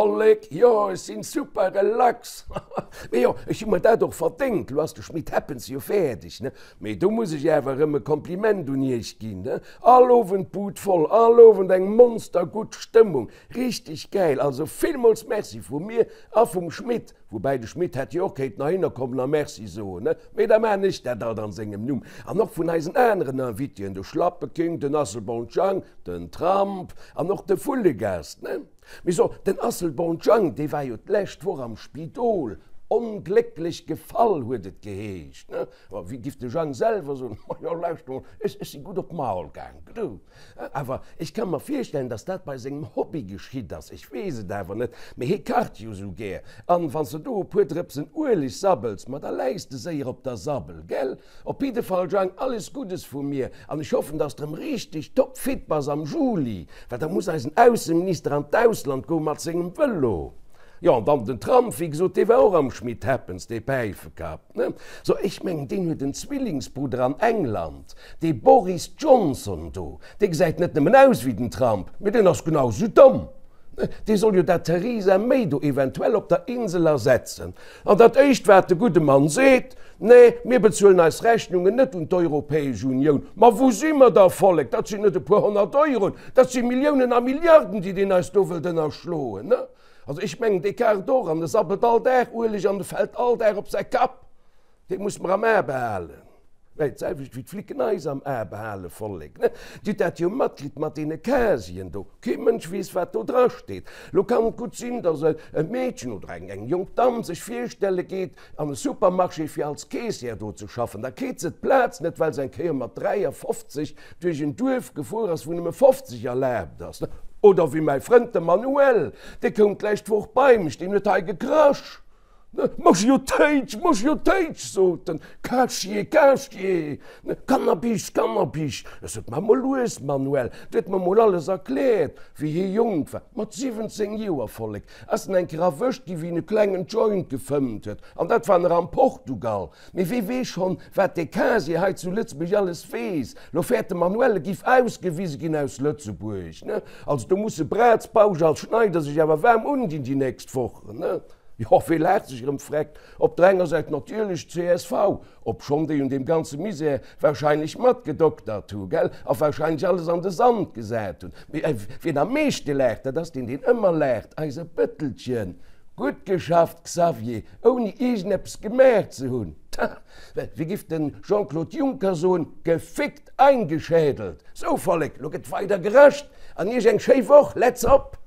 Vollek, jo ech sinn super relax, mee jo ech hu mer dat och verdéngt, lo ass de Schmit Happens jo fäerdeg ne, mee do muss ech awer erëm e Kompliment un iech ginn ne, all Owend d'Bud voll, all Owend eng monster gutt Stëmmung, richteg gäil, also villmools Merci vu mir a vum Schmit. Woubäi de Schmit hätt jo och kéinten heihinner kommen a Merci soen, ne? Mee da maan ech dat alt an sengem Numm. An och vun eisen aneren Invitéen, de Schlappeking, den Asselborn Jang, den Trump an och de Vullegast, ne? Mee so, den Asselborn Jang, dee war jo d'lescht Woch am Spidol, onglécklech gefall huet et geheescht, ne? Wéi giff de Jang selwer soen, Majo, lauschter mol, ech si gutt op d'Maul gaang, du. Awer ech ka mer virstellen, dass dat bei sengem Hobby geschitt ass. Ech weess et awer net, mee hie kacht jo sou gär. An wann s de do e puer Drëpsen Ueleg sabbels, ma da läis de séier op der Sabbel, gell? Op jidde Fall, Jang, alles Guddes vu mir an ech hoffen, dass de rëm richteg topfit bass am Juli, well da muss eisen Ausseminister an d'Ausland goe mat sengem Vëlo. Jo, an dann den Trump, wéi gesot, dee war och am Schmit Happens, dee Päifekapp, ne? So, ech mengen, deen huet en Zwillingsbrudder an England, dee Boris Johnson do, dee gesäit net nëmmen aus wéi den Trump, mee deen ass genau esou domm, ne? Dee soll jo dat Theresa May do eventuell op der Insel ersetzen. An dat éischt, wat de gudde Mann seet, Nee, mir bezuelen eis Rechnungen net un d'Europäesch Unioun. Ma wou si mer da, Vollek? Dat sinn net e puer 100 Euroen, dat si Milliounen a Milliarden, déi deen eis do wëllt ënnerschloen, ne? Also ech mengen, dee kacht och an e sabbelt all Dag Ueleg an e fält all Dag op säi Kapp. Dee muss mer am A behalen. Mä d'selwecht wéi d'Flicken eis am A behalen, Vollek, ne? Dir hutt dat jo matkritt mat deene Casieren do. Kee Mënsch weess, wat do dra steet. Lo kann et gutt sinn, datt e Meedchen oder eng jonk Damm sech virstelle geet an e Supermarché fir als Caissière do ze schaffen. Da kritt se d'Plaz net, well se eng Kéier mat 53 duerch en Duerf gefuer ass, wou nëmme 50 erlaabt ass. Oder wéi mäi Frënd de Manuel, dee koum d'lescht Woch bei mech, deen huet hei gekrasch. Mach jo Téitsch, mach jo Téitsch, sot en, Casier, Casier, Cannabis, Cannabis. Ech sot, Maach mol lues, Manuel. Du huet mer mol alles erkläert, wéi hie jonk war, mat 17 Joer, Vollek, ass en eng Kéier erwëscht gi wéi en e klengen Joint gefëmmt huet, an dat war nach am Portugal. Mee wee weess schonn, wat dee Casier hei zu Lëtzebuerg alles weess. Lo fäert de Manuel, e giff ausgewise ginn aus Lëtzebuerg, ne? Also do musse Braz, Bausch a Schneider sech awer waarm undinn déi nächst Wochen, ne? Jo, wee laacht sech erëm vreckt? Op der enger Säit natierlech d'CSV, obschonn déi un deem ganze Misär wahrscheinlech matgedoktert hu, gell, a wahrscheinlech alles an de Sand gesat hunn. Mee wien am meeschte laacht, dat ass deen, deen ëmmer laacht, eise Bëttelchen. Gutt geschafft, Xavier, ouni iergendeppes gemaach ze hunn. Tja, wéi giff de Jean-Claude Juncker soen, gefickt eingeschädelt. Sou, Vollek, lo gëtt weider gerascht an iech eng schéi Woch. Let's op!